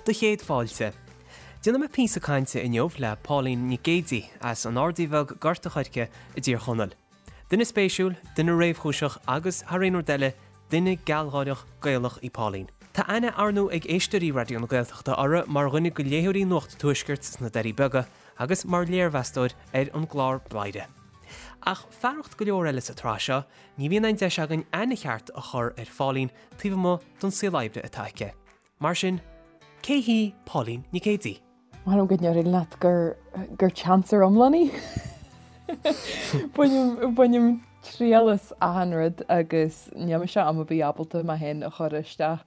Do chéad fáilte. Déanfaidh mé píosa cainte inniu le Pauline Nic Géidigh as an Ardaí Bheag Gort a' Choirce i dTír Chonaill. Duine spéisiúil, duine réamhchúiseach agus, thar aon rud eile, duine gealgháireach Gaelach í Pauline. Tá aithne ar ndóigh ag éisteoirí Raidió na Gaeltachta uirthi mar dhuine de léitheoirí Nuacht an Tuaiscirt sna Doirí Beaga agus mar léirmheastóir ar an gclár Bladhaire. Ach fearacht go leor eile sa tsraith seo, ní bhíonn aon deis againn aithne cheart a chur ar Phauline taobh amuigh den saol oibre atá aici. Mar sin, cé hí Pauline Nic Géidigh? Ba mhaith liom go ndéarfainn leat gur gur chancer iomlán í. Bainim bainim triail as achan rud agus níl mise am ar bith ábalta mé féin a chur isteach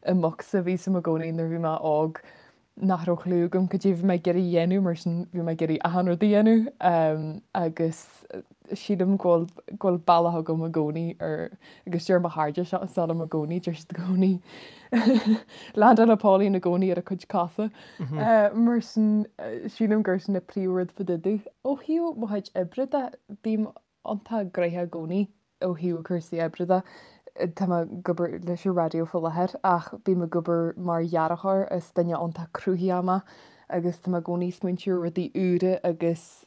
i mbocsa. Bhí 'fhios a'm i gcónaí nuair a bhí mé óg nach raibh clue agam cad é bhí mé ag iarraidh a dhéanamh mar sin bhí mé ag iarraidh achan rud a dhéanamh agus sílim go bhfuil go bhfuil bealach agam i gcónaí ar agus deir mo chairde seo seo liom i gcónaí deir siad i gcónaí landálann Pauline i gcónaí ar a cuid cosa mar sin sílim gur sin an príomhrud fá dtaobh de. Ó thaobh mo chuid oibre de bím iontach gnoitheach i gcónaí ó thaobh cúrsaí oibre de. Tá mé ag obair leis an raidió faoi láthair ach bím ag obair mar dhearthóir, is duine iontach cruthaitheach mé agus tá mé i gcónaí ag smaointiú ar rudaí úra agus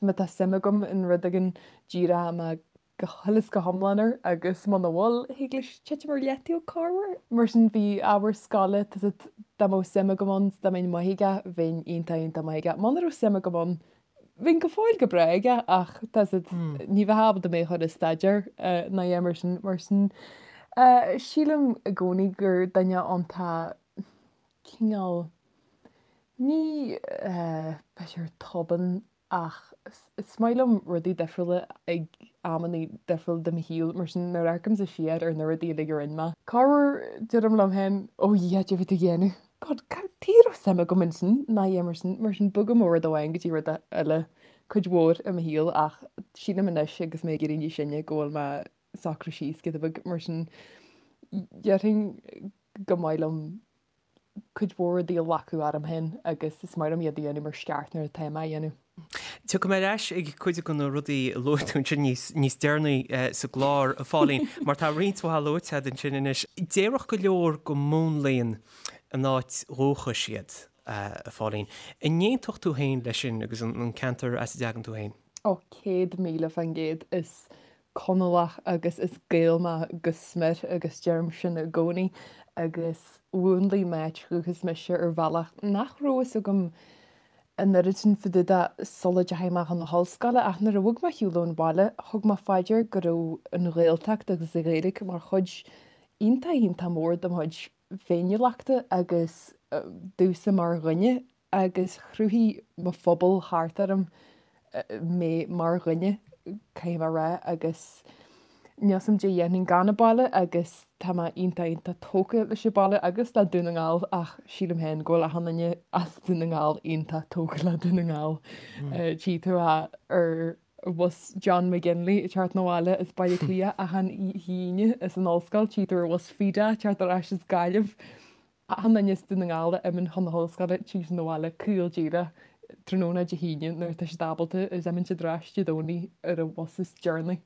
má tá suim agam in rud éigin díreoidh mé go huile is go hiomlán air agus muna bhfuil, thig leis titim ar leataobh corruair. Mar sin bhí ábhar scoile, tá 's a'd, dá mbeadh suim agam ann, dá mbeinn maith aige, bheinn iontach iontach maith aige. Muna raibh suim agam ann, Bheinn go fóill go breá aige ach tá 's a'd ní bheifeá ábalta mé a chur ag staidéar ná a dhath mar sin. Mar sin sílim i gcónaí gur duine iontach cineál ní b'fhéidir tobann ach is maith liom rudaí difriúla ag amanna difriúla de mo shaol mar sin nuair a amharcaimse siar ar na rudaí uilig a rinne mé, corruair deirim liom féin 'Ó Dhia, cad é a bhí tú a dhéanamh? God, cad tuige a raibh suim agam ansin ná a dhath mar sin, mar sin bogaim ó rud amháin go dtí rud eile cuid mhór i mo shaol ach sílim anois agus mé ag éirí níos sine go bhfuil mé ag socrú síos giota beag mar sin déarfainn go maith liom cuid mhór rudaí a ghlacadh orm féin agus is maith liom iad a dhéanamh mar is ceart nuair atá mé á dhéanamh. Tiocfaidh mé ar ais ag cuid de na rudaí a luaigh tú ansin níos, níos deireanaí sa gclár, a Phauline, mar tá roinnt mhaith luaite agat ansin anois. Déarfadh go leor go múnlaíonn a n-áit dhúchais iad, a Phauline. An n-aontódh tú féin leis sin agus an ceantar as a dtagann tú féin? Ó, 100,000%. Is Conallach agus is Gael mé go smior agus deirim sin i gcónaí agus mhúnlaigh m'áit dhúchais mise ar bhealach nach raibh fhios agam an oiread sin fá dtaobh de sula dteachaigh mé chun na hollscoile ach nuair a bhog mé ar shiúl ón bhaile thug mé fá dear go raibh an Ghaeltacht agus an Ghaeilge mar chuid iontach iontach mór de mo chuid féiniúlachta agus domhsa mar dhuine agus chruthaigh mo phobal thart orm mé mar dhuine, caithfidh mé a rá, agus níl 'fhios a'm caidé a dhéanfainn gan an baile agus tá mé iontach iontach tógtha leis an baile agus le Dún na nGall ach sílim féin go bhfuil achan duine as Dún na nGall iontach tógtha le Dún na nGall. Tchí tú ar bhus John McGinley ag teacht 'na bhaile as Baile Átha Cliath achan Aoine as an ollscoil, tchí tú ar bhus Fida ag teacht ar ais as Gaillimh. Achan duine as Dún na nGall a imíonn chun na hollscoile téann siad 'na bhaile caol díreach tráthnóna Dé hAoine nuair atá siad ábalta is imíonn siad ar ais Dé Domhnaigh ar an bhus is deireanaí.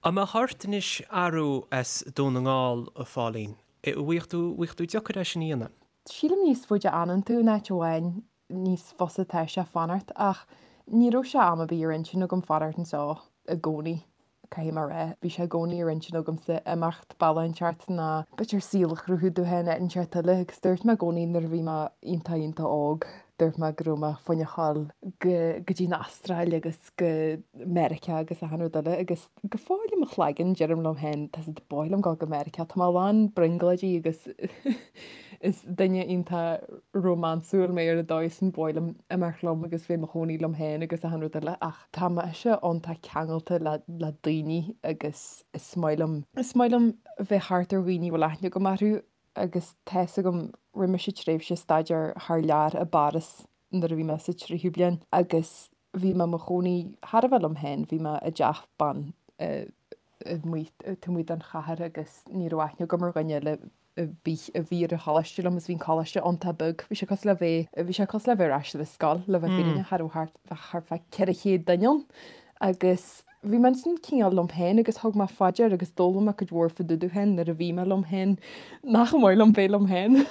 An mbeadh ort anois athrú as Dún na nGall, a Phauline? An bhfaigheadh tú, bhfaigheadh tú deacair é sin a dhéanamh? Sílim níos faide a fhanann tú in áit amháin níos fusa atá sé fanacht ach ní raibh sé am ar bith ar intinn agam fanacht anseo i gcónaí, caithfidh mé a rá. Bhí sé i gcónaí ar intinn agamsa imeacht bealach inteacht nó b'fhéidir saol a chruthú domh féin áit inteacht eile agus dúirt mé i gcónaí nuair a bhí mé iontach iontach óg, dúirt mé go raibh mé fá choinne dhul go go dtí an Astráil agus go Meiriceá agus achan rud eile agus Go fóill i mo chloigeann, deirim liom féin, tá 's a'd, ba mhaith liom dul go Meiriceá, tá mé lán brionglóidí agus is duine iontach rómánsúil mé ar an dóigh sin, ba mhaith liom imeacht liom agus bheith i mo chónaí liom féin agus achan rud eile ach tá mise iontach ceangailte le le daoine agus is maith liom, is maith liom bheith thart ar dhaoine a bhfuil aithne agam orthu agus tá 'fhios agam, rinne mise tréimhse staidéir thar lear i bPáras nuair a bhí mé sa tríú bliain agus bhí mé i mo chónaí thar a bheith liom féin, bhí mé i dteach ban amuigh taobh amuigh den chathair agus ní raibh aithne agam ar dhuine eile ar bith a bhí ar an choláiste liom agus bhí an coláiste iontach beag, bhí sé cosúil le bheith, bhí sé cosúil le bheith ar ais ar an scoil le bheith fírinneach, cha raibh thart, bheadh thart fá 400 duine ann agus. Bhí mé ansin cineál liom féin agus thug mé fá dear agus d'fhoghlaim mé cuid mhór fá dtaobh domh féin nuair a bhí mé liom féin nach maith liom bheith liom féin.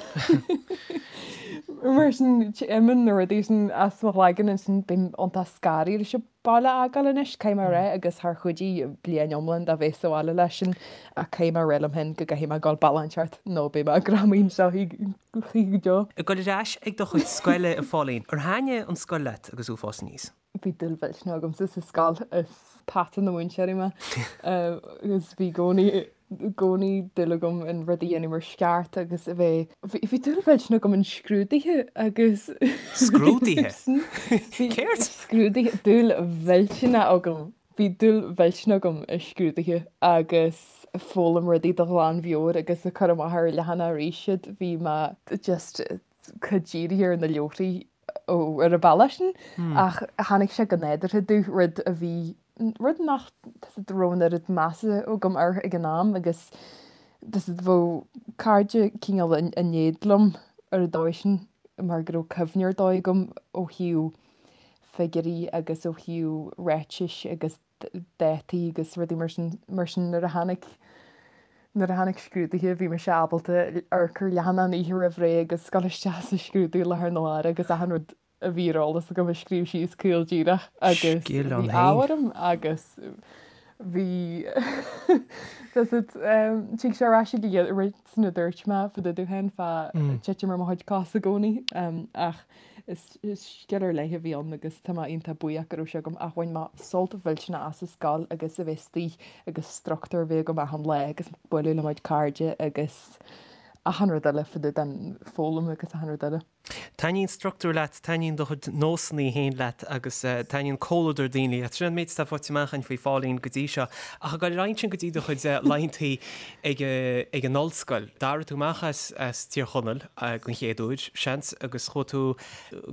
Mar sin imíonn na rudaí sin as mo chloigeann ansin bím iontach scanraithe leis an baile a fhágáil anois, caithfidh mé a rá, agus char chuidigh bliain iomlán de bheith sa bhaile leis sin ach caithfidh mé a rá liom féin go gcaithfidh mé dul bealach inteacht nó beidh mé greamaithe anseo choíche go deo. Ag dul ar ais ag do chuid scoile, a Phauline, ar thaitnigh an scoil leat agus thú ag fás aníos? Bhí dúil mhillteanach agamsa sa scoil, is peata na múinteoirí mé agus bhí i gcónaí i gcónaí dúil agam in rud a dhéanamh mar is ceart agus a bheith, bhí dúil mhillteanach agam in scrúduithe agus Scrúduithe? Céard? Scrúduithe, dúil mhillteanach agam, bhí dúil mhillteanach agam i scrúduithe agus foghlaim rudaí de ghlanmheabhair agus ag cur amach ar leathanach arís iad, bhí mé just chomh dírithe ar na leabharthaí ar an bhealach sin ach tháinig sé go nádúrtha domh, rud a bhí, rud nach raibh an oiread measa agam air ag an am agus bheadh cairde cineál in éad liom ar an dóigh sin mar go raibh cuimhne ar dóigh agam ó thaobh figiúirí agus ó thaobh ráitis agus dátaí agus rudaí mar sin, mar sin nuair a tháinig, nuair a tháinig scrúduithe bhí mise ábalta amharc ar leathanach an oíche roimh ré agus dul isteach sa scrúdú i láthair na huaire agus achan rud a bhí ar eolas agam a scríobh síos caol díreach agus Scil bhí ann ádh féin. orm agus bhí does it tig sé ar ais ag an rud sin a dúirt mé fá dtaobh domh féin fá titim ar mo chuid cos i gcónaí ach Is scil ar leith a bhí ann agus tá mé iontach buíoch go raibh sé agam ach bhain mé sult mhillteanach as an scoil agus a bheith istigh agus struchtúr a bheith agam achan lá agus bualadh le mo chuid cairde agus achan rud eile fá dtaobh den foghlaim agus achan rud eile. Taitníonn struchtúr leat, taitníonn do chuid nósanna féin leat agus taitníonn comhluadar daoine leat. Sin an méid atá faighte amach againn faoi Phauline go dtí seo. Ach ag dul ar aghaidh ansin go dtí do chuid laethanta ag an ollscoil, d'éirigh tú amach as Tír Chonaill. den chéad uair, seans, agus chuaigh tú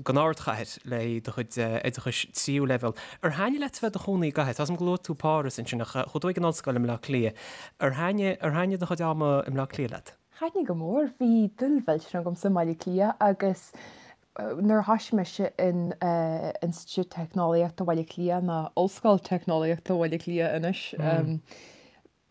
don ardchathair le do chuid oideachais tríú leibhéal. Ar thaitnigh leat a bheith i do chónaí i gcathair? Tá 's agam gur luaigh tú Páras ansin ach chuaigh tú ag an ollscoil i mBleá Cliath. Ar thaitnigh, ar thaitnigh do chuid ama i mBleá Cliath leat? Thaitnigh go mór. Bhí dúil mhillteanach agamsa i mBaile Átha Cliath agus nuair a thoisigh mise in Institiúid Teicneolaíochta Bhaile Átha Cliath, nó Ollscoil Teicneolaíochta Bhaile Átha Cliath anois,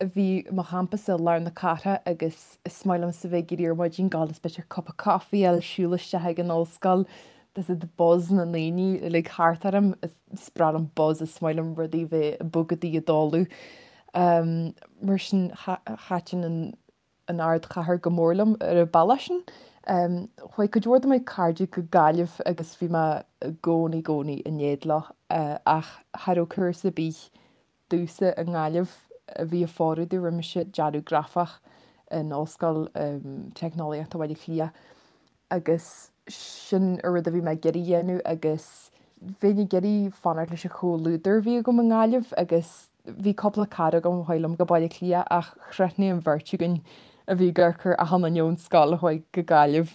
Bhí mo champas i lár na cathrach agus is maith liomsa bheith ag éirí ar maidin, gabháil is b'fhéidir cupa coffee a fháil, siúl isteach ag an ollscoil, there's the buzz na ndaoine uilig thart orm, is breá liom buzz, is maith liom rudaí bheith ag bogadh ag dul. Mar sin thaitin an an ardchathair go mór liom ar an bhealach sin. Chuaigh cuid mhór de mo chairde go Gaillimh agus bhí mé i gcónaí i gcónaí in éad leo ach cha raibh cúrsa ar bith domhsa i nGaillimh a bhí ag fóireadh domh, rinne mise dearadh grafach in Ollscoil Teicneolaíochta Bhaile Átha Cliath agus sin an rud a bhí mé ag iarraidh a dhéanamh agus bheinn ag iarraidh fanacht leis an chomhluadar a bhí agam i nGaillimh agus bhí cúpla cara agam a chuaigh liom go Baile Átha Cliath ach chrothnaigh an bheirt againn a bhí ag amharc ar achan duine ón scoil a chuaigh go Gaillimh.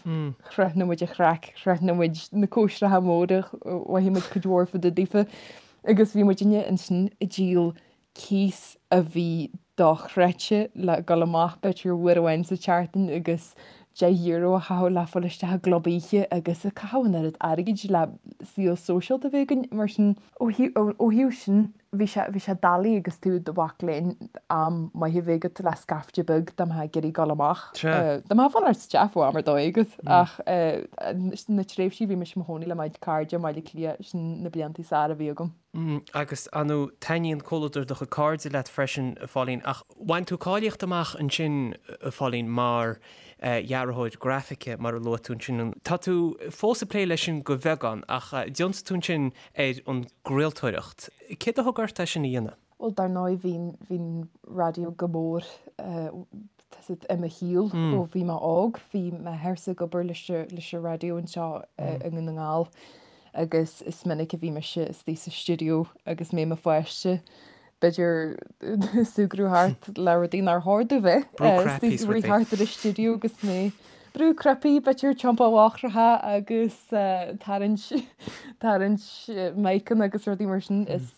Chrothnaigh muid an chraic, chrothnaigh muid na cóisreacha móra, mhothaigh muid cuid mhór fá dtaobh daofa. Agus bhí muidinne ansin ag díol cíos a bhí dochreidte le dul amach b'fhéidir uair amháin sa tseachtain agus €10 a chaitheamh le fáil isteach i gclub oíche agus ag caitheamh an oiread airgid le saol sóisialta a bheith againn. Mar sin, ó thaobh sin, bhí sé, bhí sé doiligh agus tú i do mhac léinn am maith a bheith agat le scaifte beag dá mbeifeá ag iarraidh dul amach. Dá mbeifeá ag fanacht sa teach bheadh am ar dóigh agat ach na tréimhsí a bhí mise i mo chónaí le mo chuid cairde i mBaile Átha Cliath, sin na blianta is fearr a bhí agam. Agus, ar ndóigh, taitníonn comhluadar do chuid cairde leat freisin, a Phauline, ach bhain tú cáilíocht amach ansin, a Phauline, mar dhearthóir grafaice, mar a luaigh tú ansin. Tá tú fós ag plé leis sin de bheagán, ach d'ionsaigh tú ansin ar an gcraoltóireacht. Céard a thug ort é sin a dhéanamh? Bhuel, dar ndóigh, bhí, bhí an raidió go mór i mo shaol ó bhí mé óg. Bhí m'athairse ag obair leis leis an raidió anseo i nDún na nGall agus is minic a bhí mise istigh sa stiúideo agus mé i mo pháiste, b'fhéidir súgradh thart le rudaí nár chóir domh bheith Brú cnaipí istigh rith thart ar an stiúideo agus mé brú cnaipí, b'fhéidir tiompáil eochracha agus tarraingt tarraingt miceanna agus rudaí mar sin. Is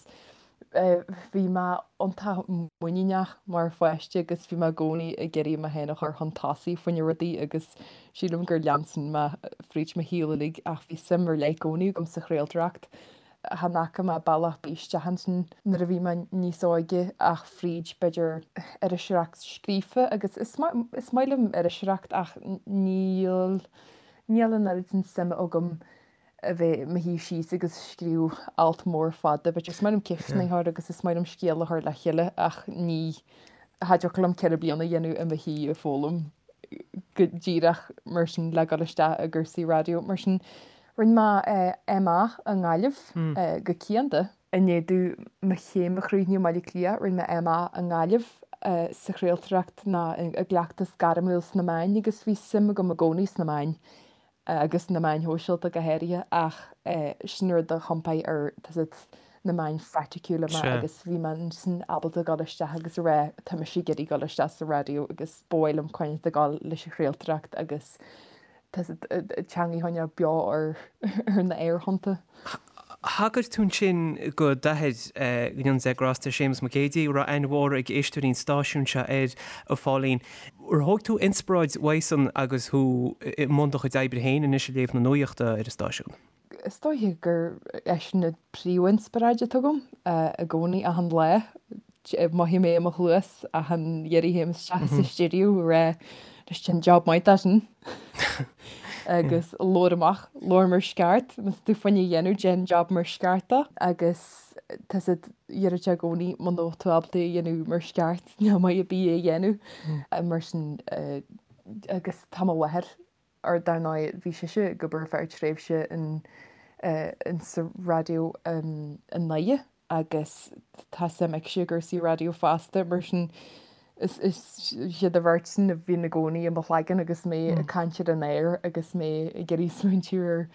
Bhí mé iontach muiníneach mar pháiste agus bhí mé i gcónaí ag iarraidh mé féin a chur chun tosaigh fá choinne rudaí agus sílim gur lean sin mé fríd mo shaol uilig ach bhí suim ar leith i gcónaí agam sa chraoltóireacht. Chan fhaca mé bealach ar bith isteach ansin nuair a bhí mé níos óige ach fríd b'fhéidir iriseoireacht scríofa agus is is maith liom iriseoireacht ach níl níl an oiread sin suime agam a bheith i mo shuí síos agus scríobh alt mór fada but is maith liom ceisteanna a chur agus is maith liom scéal a chur le chéile ach ní cha dtiocfadh liom 4 bliana a dhéanamh i mo shuí ag foghlaim go díreach mar sin le dul isteach i gcúrsaí raidió mar sin. Rinne mé MA i nGaillimh go cianda. I ndiaidh domh mo chéim a chríochnú i mBaile Átha Cliath, rinne mé MA i nGaillimh sa chraoltóireacht ná i gcleachtas gairmiúil sna meáin agus bhí suim agam i gcónaí sna meáin agus na meáin shóisialta go háirithe ach sin rud a chompáigh ar tá 's agat na meáin phraiticiúla mé agus bhí mé ansin ábalta dul isteach agus a rá tá mise ag iarraidh dul isteach sa raidió agus ba mhaith liom coinneáil ag dul leis an chraoltóireacht agus tá 's agat teanga a choinneáil beo ar ar na aerthonnta. Thagair tú ansin go d'athair, go ndéana Dia grásta air, Séamus Mac Géidigh, a raibh aithne mhór ag éisteoirí an stáisiúin seo air, a Phauline. Ar thóg tú inspioráid uaidhsan agus thú i mbun do chuid oibre féin anois ag léamh na nuachta ar an stáisiún? Is dóiche gur eisean an príomhinspioráid atá agam i gcónaí, achan lá. Mothaím é i mo chluas achan iarraidh a théim isteach sa stiúideo ag rá anois déan job maith de sin agus labhair amach, labhair mar is ceart, má tá tú fá choinne a dhéanamh déan job mar is ceart dó agus tá 's agat deireadh sé i gcónaí muna bhfuil tú ábalta é a dhéanamh mar is ceart níl maith ar bith é a dhéanamh mar sin agus tá mo mháthair Ar dar ndóigh bhí sise ag obair ar feadh tréimhse in in sa raidió i nDoire agus tá suim aici i gcúrsaí raidió fosta mar sin is is iad an bheirt sin a bhíonn i gcónaí i mo chloigeann agus mé ag caint ar an aer agus mé ag iarraidh smaointiú ar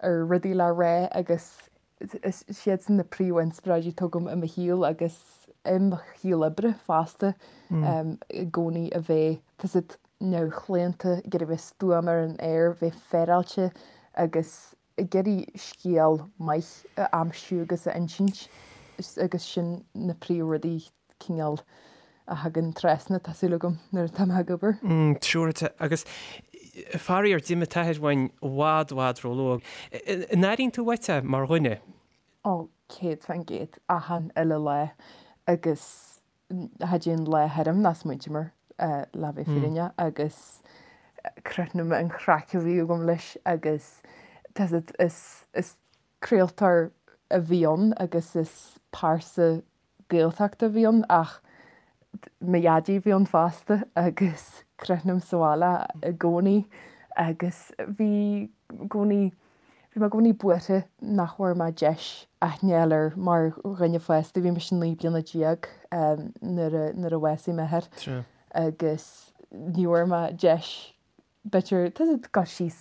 ar rudaí le rá agus is iadsan na príomhinspioráidí atá agam i mo shaol agus i mo shaol oibre fosta i gcónaí a bheith tá 's agat neamhchlaonta, ag iarraidh bheith stuama ar an aer, bheith féaráilte agus ag iarraidh scéal maith a aimsiú agus a insint agus sin na príomhrudaí cineál a thagann trasna, tá súil agam, nuair atá mé ag obair. Siúráilte. Agus faraor, d'imigh t'athair uainn i bhfad, i bhfad róluath. An airíonn tú uait é mar dhuine? Ó, 100%, achan uile lá. Agus cha dtéann lá tharam nach smaointím air, le bheith fírinneach, agus crothnaím an chraic a bhí agam leis agus tá 's agat, is, is craoltóir a bhí ann agus is pearsa Gaeltachta a bhí ann ach mo dhaidí a bhí ann fosta agus crothnaim sa bhaile i gcónaí agus bhí i gcónaí, bhí mé i gcónaí buartha nach bhfuair mé deis aithne a fháil air mar dhuine fásta. Bhí mise 19 bliana nuair a, nuair a bhásaigh m'athair agus ní bhfuair mé deis b'fhéidir, tá 's agat, dul síos,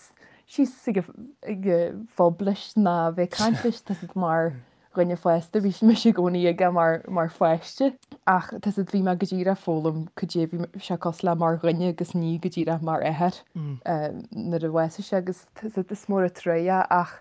síos ag an phub leis ná bheith ag caint leis, tá 's agat, mar dhuine fásta, bhí mise i gcónaí aige mar, mar pháiste. Ach tá 's agat, bhí mé go díreach ag foghlaim cad é bhí sé cosúil le mar dhuine agus ní go díreach mar athair nuair a bhásaigh sé agus tá 's agat, is mór an truaigh é ach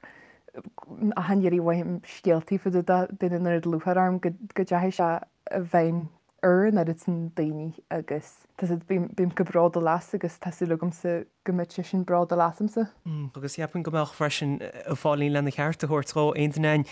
achan iarraidh a mhothaím scéaltaí fá dtaobh de, bíonn an oiread lúcháir orm go, go dteachaigh sé i bhfeidhm ar an oiread sin daoine agus tá 's agat, bím, bím chomh bródúil as agus tá súil agamsa go mbeidh seisean bródúil asamsa. Agus cheapfainn go mbeadh freisin, a Phauline, lena cheart a thabhairt dhó, aon duine againn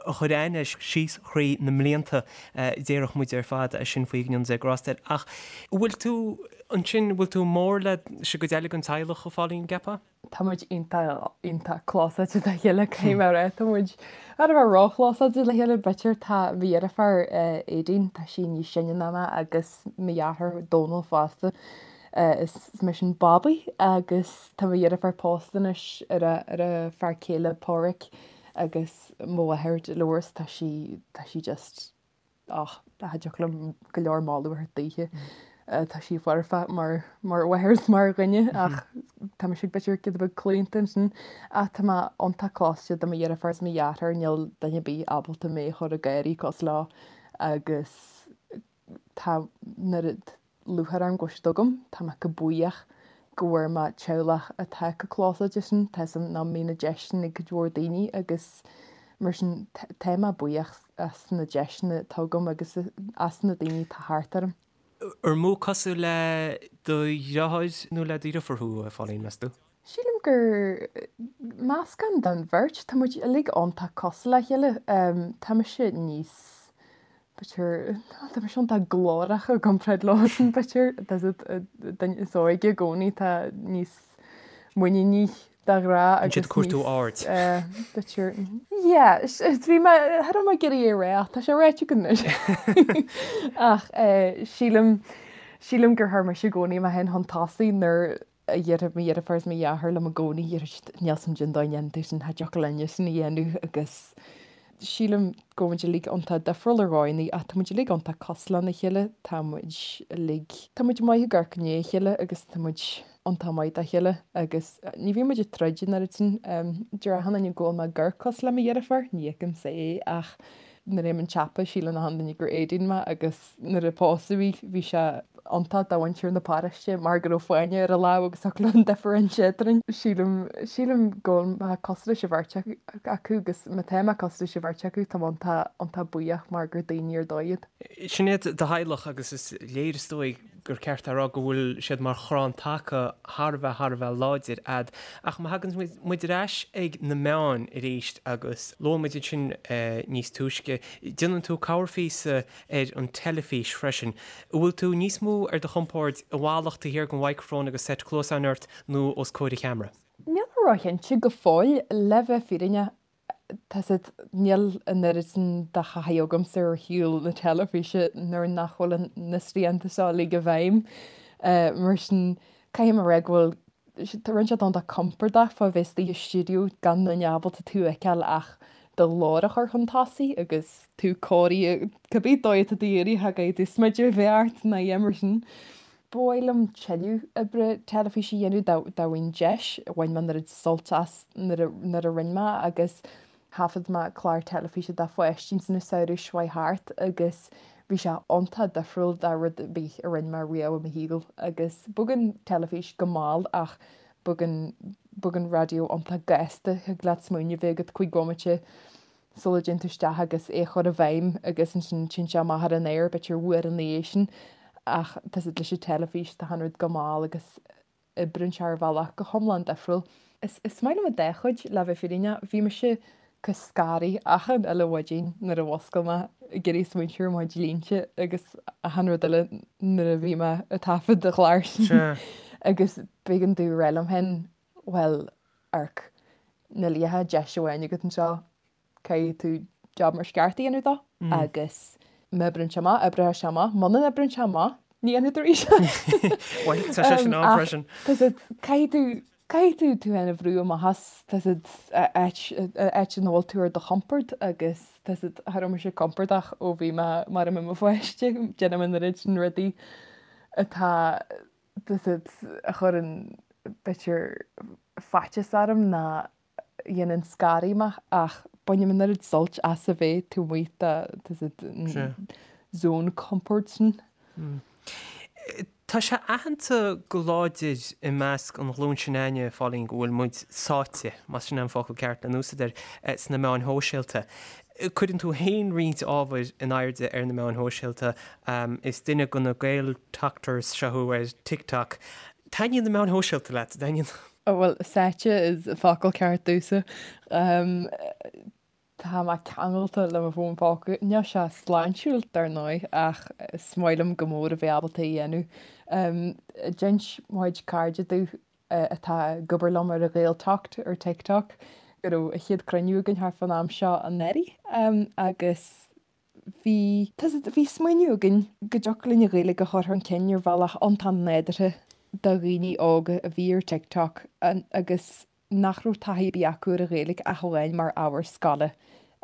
a chuir aithne air síos thrí na mblianta, déarfadh muid ar fad é sin faoi, go ndéana Dia grásta air. Ach bhfuil tú, ansin, bhfuil tú mór leis an gcuid eile den teaghlach, a Phauline, gceapfá? Tá muid iontach, iontach clósáilte dá chéile, caithfidh mé a rá. Tá muid thar a bheith róchlósáilte le chéile, b'fhéidir. Tá mo dheirfiúr, Aedín, tá sí níos sine ná mé agus mo dheartháir Dónal fosta. Is mise an babaí agus tá mo dheirfiúr pósta anois ar a, ar a fear céile Páraic agus mo mháthair Dolores, tá sí, tá sí just Ach cha dtiocfadh liom go leor moladh a thabhairt daoithe. Tá sí foirfe mar mar mháthair is mar dhuine ach tá mise b'fhéidir giota beag claonta ansin. Ach tá mé iontach clósáilte do mo dheirfiúr is mo dheartháir, níl duine ar bith ábalta mé a chur ag gáirí cosúil leo agus tá an oiread lúcháir orm go bhfuil siad agam. Tá mé chomh buíoch go bhfuair mé teaghlach atá chomh clósáilte sin. Tá 'fhios a'm nach mbíonn an deis sin ag cuid mhór daoine agus mar sin tá mé buíoch as na deiseanna atá agam agus as na daoine atá thart orm. Ar mó cosúil le do dheartháir nó le do dheirfiúr thú, a Phauline, meas tú? Sílim. gur meascán den bheirt. Tá muid uilig iontach cosúil le chéile. Tá mise níos, b'fhéidir, tá mise iontach glórach i gcomparáid leosan, b'fhéidir. Tá an duine is óige i gcónaí, tá níos muiníní de ghnáth agus níos. Siad cuartú aird. B'fhéidir. Yeah, bhí mé, cha raibh mé ag iarraidh é a rá ach tá sé ráite agam anois. Ach sílim, sílim gur chuir mise i gcónaí mé féin chun tosaigh nuair a déarfadh mo dheirfiúr is mo dheartháir liom i gcónaí, níl a fhios a'm cén dóigh a ndéanann tú sin, cha dtiocfadh linne sin a dhéanamh agus sílim go bhfuil muid uilig iontach difriúil ar dhóigheanna ach tá muid uilig iontach cosúil lena chéile, tá muid uilig, tá muid maith ag amharc i ndiaidh a chéile agus tá muid iontach maith dá chéile agus ní bhíonn muid ag troid an oiread sin. Deir achan duine go bhfuil mé ag amharc cosúil le mo dheirfiúr, ní fheicimse é ach nuair a théim chun tsiopa síleann achan duine gur Éadaoin mé agus Nuair a pósadh í bhí sé iontach do mhuintir na paróiste mar go raibh fáinne ar a lámh agus thiocfadh leo an difear a inse eadrainn. Sílim, sílim go bhfuil mé cosúil leis an bheirt acu agus má tá mé cosúil leis an bheirt acu tá mé iontach, iontach buíoch mar gur daoine ar dóigh iad. Sin iad do theaghlach agus is léir is dóigh gur ceart a rá go bhfuil siad mar chrann taca thar a bheith, thar a bheith láidir a'd. Ach má thagann muid ar ais ag na meáin arís agus luaigh muid ansin níos túisce, déanann tú corrphíosa ar an teilifís freisin. An bhfuil tú níos mó ar do chompord i bhfalach taobh thiar den mhicreafón agus seit cluasáin ort nó os comhair an cheamara? Níl mé róchinnte go fóill, le bheith fírinneach. Tá 's a'd, níl an oiread sin de thaithí agamsa ar shaol na teilifíse nuair nach bhfuil na srianta seo uilig i bhfeidhm. Mar sin, caithfidh mé a rá go bhfuil, rinne sé iontach compordach fá bheith istigh i stiúideo gan duine ábalta tú a fheiceáil ach do ghlór a chur chun tosaigh agus tú cóirithe cibé dóigh atá tú iarraidh, cha gcaithfidh tú smideadh a bheith ort ná a dhath mar sin. Ba mhaith liom tuilleadh oibre teilifíse a dhéanamh dá bhfaighinn deis. Bhain mé an oiread sult as nuair a rinne mé agus thaifead mé clár teilifíse do pháistí ins an samhradh seo chuaigh thart agus bhí sé iontach difriúil de rud ar bith a rinne mé riamh i mo shaol agus bogann teilifís go mall ach bogann bogann raidió iontach gasta, thig leat smaoineamh a bheith agat cúig bhomaite sula dtéann tú isteach agus é a chur i bhfeidhm agus ansin téann sé amach ar an aer b'fhéidir uair ina dhiaidh sin ach tá 's a'd leis an teilifís tá an rud go mall agus oibríonn sé ar bhealach go hiomlán difriúil. Is is maith liom an dá chuid le bheith fírinneach. Bhí mise chomh scanraithe achan uile mhaidin nuair a mhuscail mé ag iarraidh smaointiú ar mo chuid línte agus achan rud eile nuair a bhí mé ag taifead an chláir sin agus b'éigean domh a rá liom féin bhuel, amharc, níl ach deis amháin agat anseo, caithfidh tú job mar is ceart a dhéanamh dó agus má oibríonn sé amach, oibreoidh sé amach, muna n-oibríonn sé amach, ní dhéanfaidh tú arís é. Bhuel, tá sé sin ann freisin. Tá 's a'd, caithfidh tú, caithfidh tú tú féin a bhrú amach as, tá 's a'd, áit, áit ina bhfuil tú ar do chompord agus tá 's a'd, cha raibh mise compordach ó bhí mé mar i mo pháiste, déanaim an oiread sin rudaí atá tá 's a'd, a chuireann b'fhéidir faitíos orm ná a dhéanann scanraithe mé ach bainim an oiread suilt as a bheith taobh amuigh de tá 's a'd an zone comfort sin. Tá sé aitheanta go láidir i measc an ghlúin sin againne, a Phauline, go bhfuil muid sáite, más sin é an focal ceart le n-úsaid air, sna meáin shóisialta. Cuireann tú féin roinnt ábhair in airde ar na meáin shóisialta. Is duine de na Gaeltokters seo thú ar TikTok. Taitníonn na meáin shóisialta leat, an dtaitníonn? Bhuel, sáite is an focal ceart domhsa. Tá mé ceangailte le mo fón póca. Níl sé sláintiúil, dar ndóigh, ach is maith liom go mór a bheith ábalta é a dhéanamh. D'inis mo chuid cairde domh atá ag obair liom ar an Ghaeltokt ar TikTok, go raibh an chéad cruinniú againn thart fán am seo anuraidh agus bhí, bhí smaoineamh againn go dtiocfadh linn an Ghaeilge a chur chun cinn ar bhealach iontach nádúrtha do dhaoine óga a bhí ar TikTok agus nach raibh taithí ar bith acu ar an Ghaeilge ach amháin mar ábhar scoile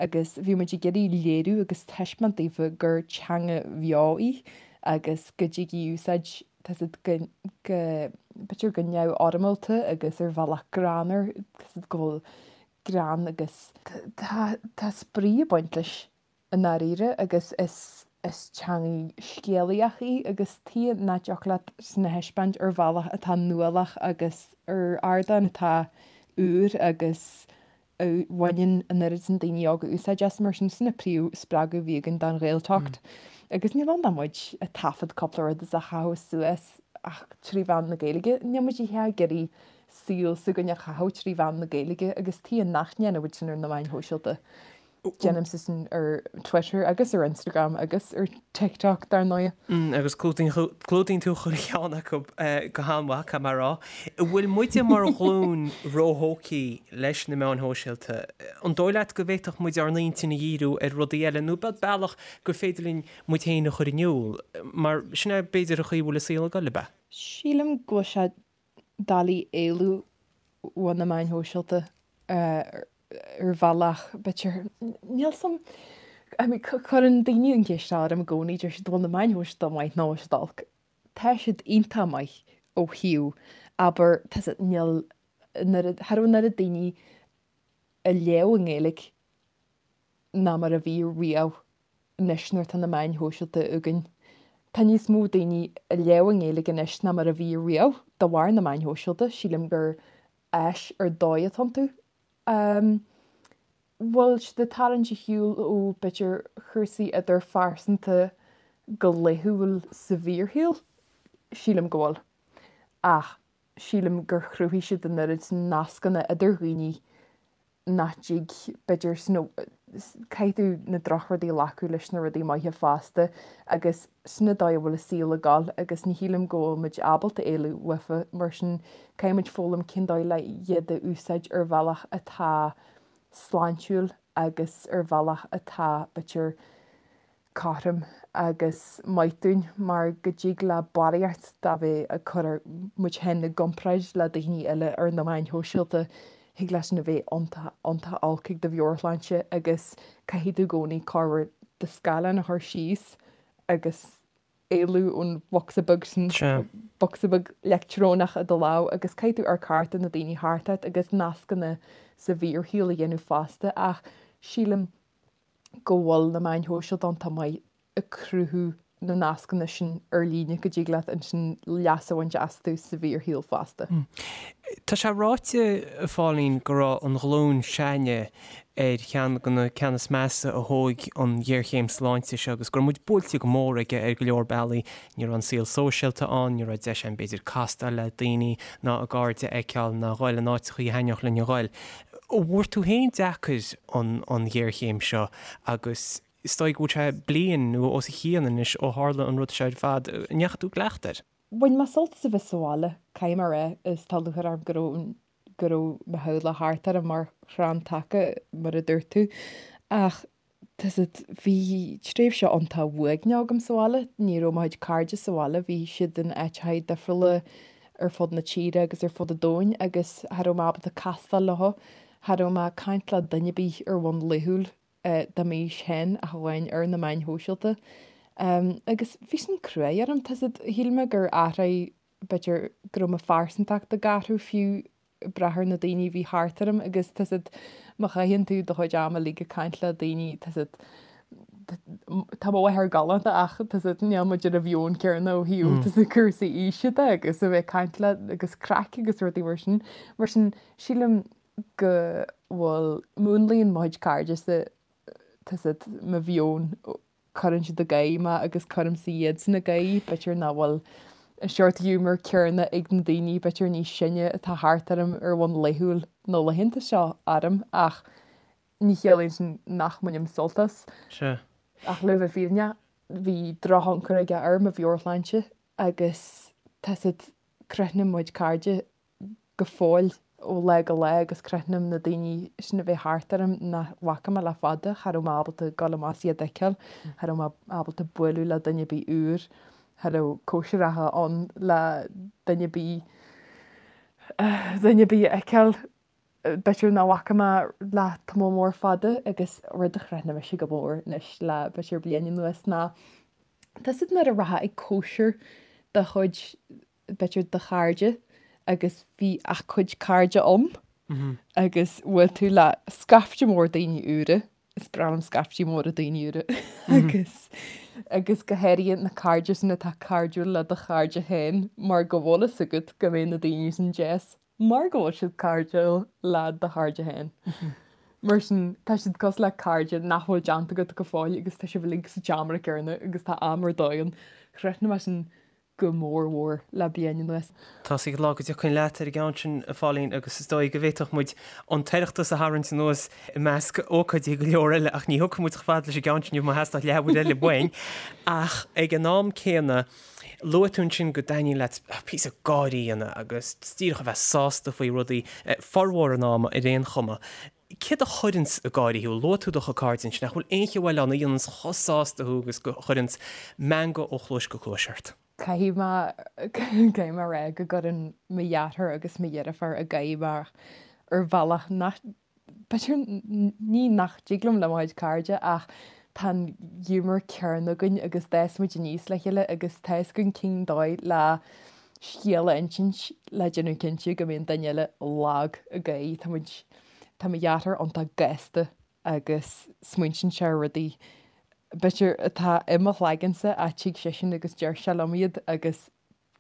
agus bhí muid ag iarraidh léiriú agus taispeáint daofa gur teanga bheo í agus go dtig í a úsáid tá 's a'd go, go, b'fhéidir go neamhfhoirmeálta agus ar bhealach greannmhar, tá 's a'd go bhfuil greann agus tá, tá spraoi ag baint leis i ndáiríre agus is, is teangaidh scéalaíoch í agus tuige nach dtiocfadh leat sin a thaispeáint ar bhealach atá nuálach agus ar ardán atá úr agus a bhaineann an oiread sin daoine óga úsáid as, mar sin, sin an príomh-spreagadh a bhí againn don Ghaeltokt. Agus níl ann ach muid ag taifead cúpla rud is á chaitheamh suas. Ach trí mheán na Gaeilge. Níl muid ag iarraidh saol s'againn a chaitheamh trí mheán na Gaeilge agus tuige nach ndéanfaidh muid sin ar na meáin shóisialta. Déanaimse sin ar Twitter agus ar Instagram agus ar TikTok dar ndóigh. Agus clúdaíonn tú chuile cheann acu go han-mhaith, caithfidh mé a rá. An bhfuil muide mar ghlúin róthógtha leis na meáin shóisialta? An dóigh leat go bhféadfadh muid ár n-intinn a dhíriú ar rudaí eile nó bealach gur féidir linn muid féin a chur in iúl, mar sin é b'fhéidir an chaoi a bhfuil an saol ag dul, ab ea? Sílim go bhfuil sé doiligh éalú ó na meáin shóisialta ar bhealach, b'fhéidir. Níl 's a'm, I mean, cuireann daoine an cheist seo orm i gcónaí, deir siad, bhfuil na meáin shóisialta maith nó bhfuil siad olc? Tá siad iontach maith ó thaobh, abair, tá siad, níl, cha raibh an oiread daoine ag léamh i nGaeilge ná mar a bhí riamh. anois nuair atá na meáin shóisialta againn. Tá níos mó daoine ag léamh i nGaeilge anois ná mar a bhí riamh de bharr na meáin shóisialta. Sílim gur áis ar dóigh atá iontu. Bhfuil siad ag tarraingt ar shiúl ó b'fhéidir chúrsaí idirphearsanta go laethúil sa bhfíorshaol? Sílim go bhfuil. Ach sílim gur chruthaigh siad an oiread nascanna idir dhaoine nach dtig, b'fhéidir, you know, caithfidh tú na drochrudaí a ghlacadh leis na rudaí maithe fosta agus sin an dóigh a bhfuil an saol ag dul agus ní shílim go bhfuil muid ábalta éalú uafa, mar sin caithfidh muid foghlaim cén dóigh le iad a úsáid ar bhealach atá sláintiúil agus ar bhealach atá, b'fhéidir, cothrom agus maith dúinn mar go dtig le barraíocht de bheith ag cur muid féin i gcomparáid le daoine eile ar na meáin shóisialta, thig leis sin a bheith iontach, iontach olc ag do mheabhairshláinte agus caithfidh tú i gcónaí corruair do scáileán a chur síos agus éalú ón bhocsa beag sin, bocsa beag leictreonach i do lámh agus caithfidh tú amharc thart ar na daoine thart ort agus nascanna sa bhfíorshaol a dhéanamh fosta ach sílim go bhfuil na meáin shóisialta iontach maith ag cruthú na nascanna sin ar líne go dtig leat ansin leas a bhaint astu sa bhfíorshaol fosta. Tá sé ráite, a Phauline, go raibh an ghlúin s'againne ar cheann de na ceanna is measa a thóg an ghéarchéim sláinte seo agus go raibh muid buailte go mór aige ar go leor bealaí. Ní raibh an saol sóisialta ann, ní raibh deis againn b'fhéidir castáil le daoine ná a gcairde a fheiceáil ná a ghoil in áiteachaí a thaitneodh linn a ghoil. An bhfuair tú féin deacair an ghéarchéim seo agus is dóigh go bhfuil sé bliain nó os a chionn anois ó tharla an rud seo ar fad. An ndeachaigh tú i gcleachtadh air? Bhain mé sult as a bheith sa bhaile, caithfidh mé a rá, is tá lúcháir orm go raibh go raibh mo theaghlach thart orm mar chrann taca, mar a dúirt tú. Ach Tá 's agat, bhí tréimhse iontach uaigneach agam sa bhaile. Ní raibh mo chuid cairde sa bhaile, bhí siad in áiteacha difriúla ar fud na tíre agus ar fud an domhain agus cha raibh mé ábalta castáil leo, cha raibh mé ag caint le duine ar bith ar bhonn laethúil de m'aois féin ach amháin ar na meáin shóisialta. Agus bhí sin cruaidh orm, tá 's agat, shíl mé gur athraigh, b'fhéidir go raibh mo phearsantacht ag athrú fiú ag brath ar na daoine a bhí thart orm agus tá 's agat má chaitheann tú do chuid ama uilig ag caint le daoine tá 's agat tá mo mháthair galánta ach tá 's agat níl muid ar an mheon céanna ó thaobh tá 's agat cúrsaí aoise de agus a bheith ag caint le agus craic agus rudaí mar sin. Mar sin sílim go bhfuil múnlaíonn mo chuid cairde tá 's agat mo mheon cuireann siad ag gáire mé agus cuirimse iadsan ag gáire, b'fhéidir nach bhfuil an seort giúmar céanna ag na daoine b'fhéidir níos sine atá thart orm ar bhonn laethúil na laethanta seo orm ach ní chiallaíonn sin nach mbainim sult as. Sea. Ach le bheith fírinneach, bhí drochthionchar aige ar mo mheabhairshláinte agus tá 's agat, crothnaím mo chuid cairde go fóill ó lá go lá agus crothnaím na daoine sin a bheith thart orm nach bhfaca mé le fada, cha raibh mé ábalta dul amach is iad a fheiceáil, cha raibh mé ábalta bualadh le duine ar bith úr, cha raibh cóisireacha ann le duine ar bith, duine ar bith a fheiceáil, b'fhéidir nach bhfaca mé le tamall mór fada agus rud a chrothnaigh mise go mór anois le b'fhéidir bliain anuas ná tá 's agat nuair a rachfá ag cóisir de chuid b'fhéidir do chairde agus bhí ach cuid cairde ann agus bhuail tú le scaifte mór daoine úra, is breá liom scaiftí móra daoine úra agus agus go háirithe na cairde sin atá cairdiúil le do chairde féin mar go bhfuil fhios agat go mbeidh na daoine sin deas mar go bhfuil siad cairdiúil le do chairde féin. Mar sin tá siad cosúil le cairde nach bhfuil déanta agat go fóill agus tá sibh uilig sa tseomra céanna agus tá am ar dóigh ann. Chrothnaigh mé sin. go mór mhór le bliain anuas. Tá's ag an lá go dtiocfainn leat ar an gceann sin, a Phauline, agus is dóigh go bhféadfadh muid an tOireachtas a tharraingt anuas i measc ócáidí go leor eile ach ní thiocfaidh muid chomh fada leis an gceann sin inniu má theastódh leathuair eile uainn. Ach ag an am céanna, luaigh tú ansin go dtaitníonn leat píosa gáirí a dhéanamh agus díreach a bheith sásta faoi rudaí, formhór an ama ar aon chuma. Céard a chuireanns ag gáirí thú? Luaigh tú do chuid cairde ansin, ach bhfuil aon cheo eile ann a dhéananns chomh sásta thú agus go chuireanns meangadh ó chluais go cluais ort? Caithfidh mé, caithfidh mé a rá go gcuireann mo dheartháir agus mo dheirfiúr ag gáire mé ar bhealach nach, b'fhéidir, ní nach dtig liom le mo chuid cairde ach tá an giúmar céanna againn agus d'fhás muid aníos le chéile agus tá fhios againn cén dóigh le scéal a insint le déanamh cinnte go mbíonn duine eile lag ag gáire. Tá muid, tá mo dheartháir iontach gasta agus smaointíonn sé ar rudaí b'fhéidir atá i mo chloigeannsa ach tig seisean agus deir sé liom iad agus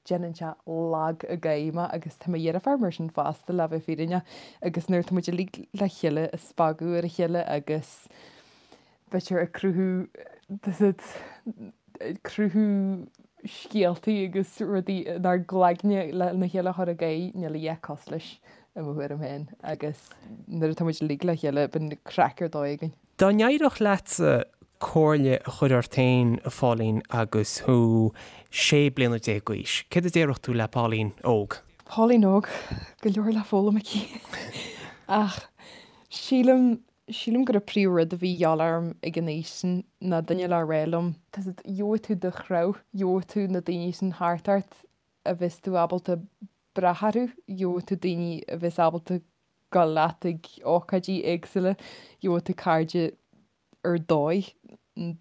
déanann sé lag ag gáire mé agus tá mo dheirfiúr mar sin fosta le bheith fírinneach agus nuair atá muid uilig le chéile ag spagadh ar a chéile agus b'fhéidir ag cruthú ag cruthú scéaltaí agus rudaí inár gcloigne lena chéile a chur ag gáire, níl a dhath cosúil leis i mo thuairim féin agus nuair atá muid uilig le chéile bíonn craic ar dóigh againn. Dá n-éireodh leatsa comhairle a chur ort féin, a Phauline, agus thú 16 bliana d'aois, céard a déarfadh tú le Pauline óg? Pauline óg, go leor le foghlaim aici ach sílim Sílim gur an príomh-rud a bhí a dhíobháil orm ag an aois sin ná duine le rá liom, tá 's agat, gheobhaidh tú do threabh, gheobhaidh tú na daoine sin thart ort a bheas tú ábalta brath orthu, gheobhaidh tú daoine a bheas ábalta dul leat ag ócáidí éagsúla, gheobhaidh tú cairde ar dóigh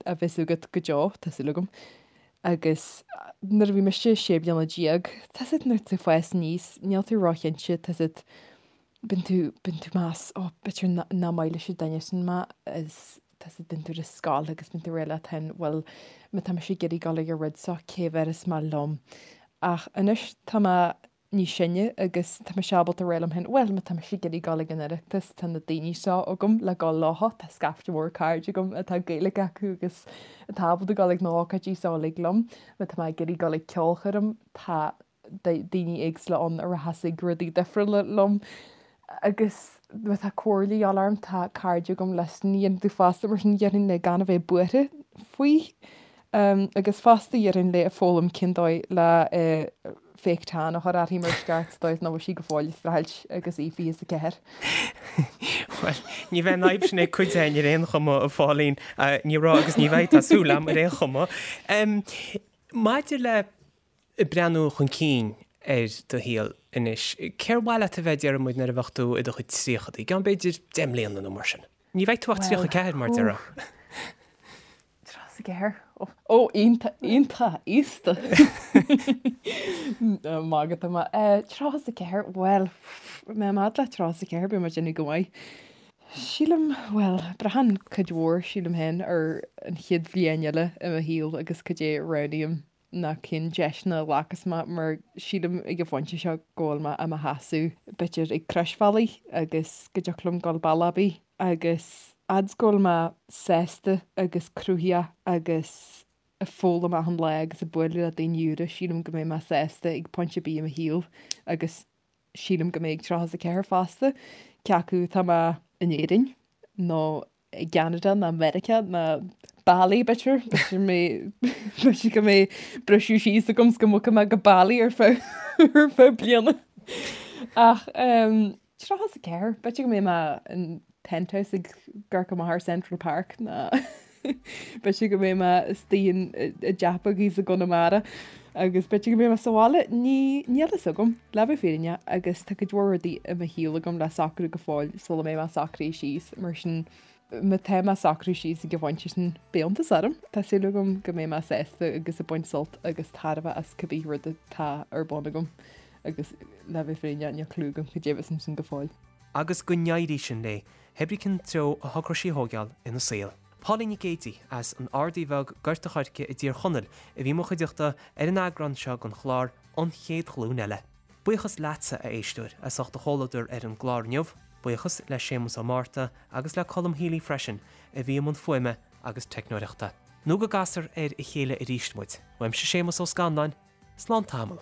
a bheas agat go deo, tá súil agam. Agus nuair a bhí mise 16 bliana, tá 's agat, nuair tú ag fás aníos, níl tú róchinnte, tá 's agat, bíonn tú, bíonn tú ag meas, ó, b'fhéidir nach maith leis an duine sin mé is tá 's agat, bíonn tú ar an scoil agus bíonn tú ag rá leat féin, bhuel, má tá mise ag iarraidh dul ag an rud seo, cé bhéarfas mé liom? Ach anois tá mé níos sine agus tá mise ábalta rá liom féin, bhuel, má tá mise ag iarraidh dul ag an Oireachtas, tá na daoine seo agam le dul leo, tá scaifte mór cairde agam atá Gaeilge acu agus atá ábalta dul ag na hócáidí seo uilig liom. Má tá mé ag iarraidh dul ag ceolchoirm, tá daoine éagsúla ann a rachas ag rudaí difriúla liom. Agus má tá comhairle a dhíobháil orm, tá cairde agam leis sin a dhéanamh fosta, mar sin déarfainn léi gan a bheith buartha faoi. Agus fosta déarfainn léi foghlaim cén dóigh le fake tan a chur uirthi mar is ceart sa dóigh is nach bhfuil sí go fóill ag streachailt agus í 24. Bhuel, ní bheidh an fhadhb sin ag cuid againn ar aon chuma, a Phauline. Ní raibh agus ní bheidh, tá súil agam, ar aon chuma. Maidir le Ag breathnú chun cinn ar do shaol anois, cér mhaith leat a bheith, déarfaidh muid, nuair a bheadh tú i do chuid tríochadaí, i gceann b'fhéidir 10 mbliana nó mar sin? Ní bheidh tú ach 34 mar a déarfá. 34? Ó, iontach, iontach aosta! Magadh atá mé. 34, bhuel, mé mad le 34, beidh mé ag déanamh go maith. Sílim, bhuel, braitheann cuid mhór, sílim féin, ar an chéad bhliain eile i mo shaol agus cad é a roghnaím. ná cén deiseanna a ghlacas mé mar sílim ag an phointe seo go bhfuil mé i mo sheasamh b'fhéidir ag croisbhealaí agus go dtiocfadh liom dul bealach ar bith agus fhad is go bhfuil mé sásta agus cruthaitheach agus ag foghlaim achan lá agus ag bualadh le daoine úra sílim go mbeidh mé sásta ag pointe ar bith i mo shaol agus sílim go mbeidh ag 34 fosta cé acu tá mé in Éirinn nó i gCeanada ná Meiriceá ná Bali b'fhéidir, b'fhéidir mé b'fhéidir go mbeidh briseadh síos agam 's go mbogfaidh mé go Bali ar feadh ar feadh bliana. Ach ehm 34, b'fhéidir go mbeidh mé in penthouse ag amharc amach ar Central Park ná b'fhéidir go mbeidh mé istigh in i dteach beag thíos i gConamara agus b'fhéidir go mbeidh mé sa bhaile, ní níl a fhios agam, le bheith fírinneach, agus tá cuid mhór rudaí i mo shaol agam le socrú go fóill sula mbeidh mé socraithe síos, mar sin má tá mé socraithe síos ag an phointe sin, beidh iontas orm. Tá súil agam go mbeidh mé sásta agus ag baint sult agus tairbhe as cibé rud atá ar bun agam agus le bheith fírinneach, níl clue agam cad é a bheas ansin go fóill. Agus go n-éirí sin léi, pé ar bith cén treo a thógfaidh sí a thógáil ina saol. Pauline Nic Géidigh as an Ardaí Bheag, Gort a' Choirce i dTír Chonaill a bhí i mo chuideachta ar an eagrán seo den chlár An Chéad Ghlúin Eile. Buíochas leatsa, a éisteoir, as ucht do chomhluadar ar an gclár inniu. Buíochas le Séamus Ó Márta agus le Colm Healy freisin a bhí i mbun fuaime agus teicneoireachta. Nó go gcasfar ar a chéile arís muid, uaimse Séamus Ó Scanláin. Slán tamall.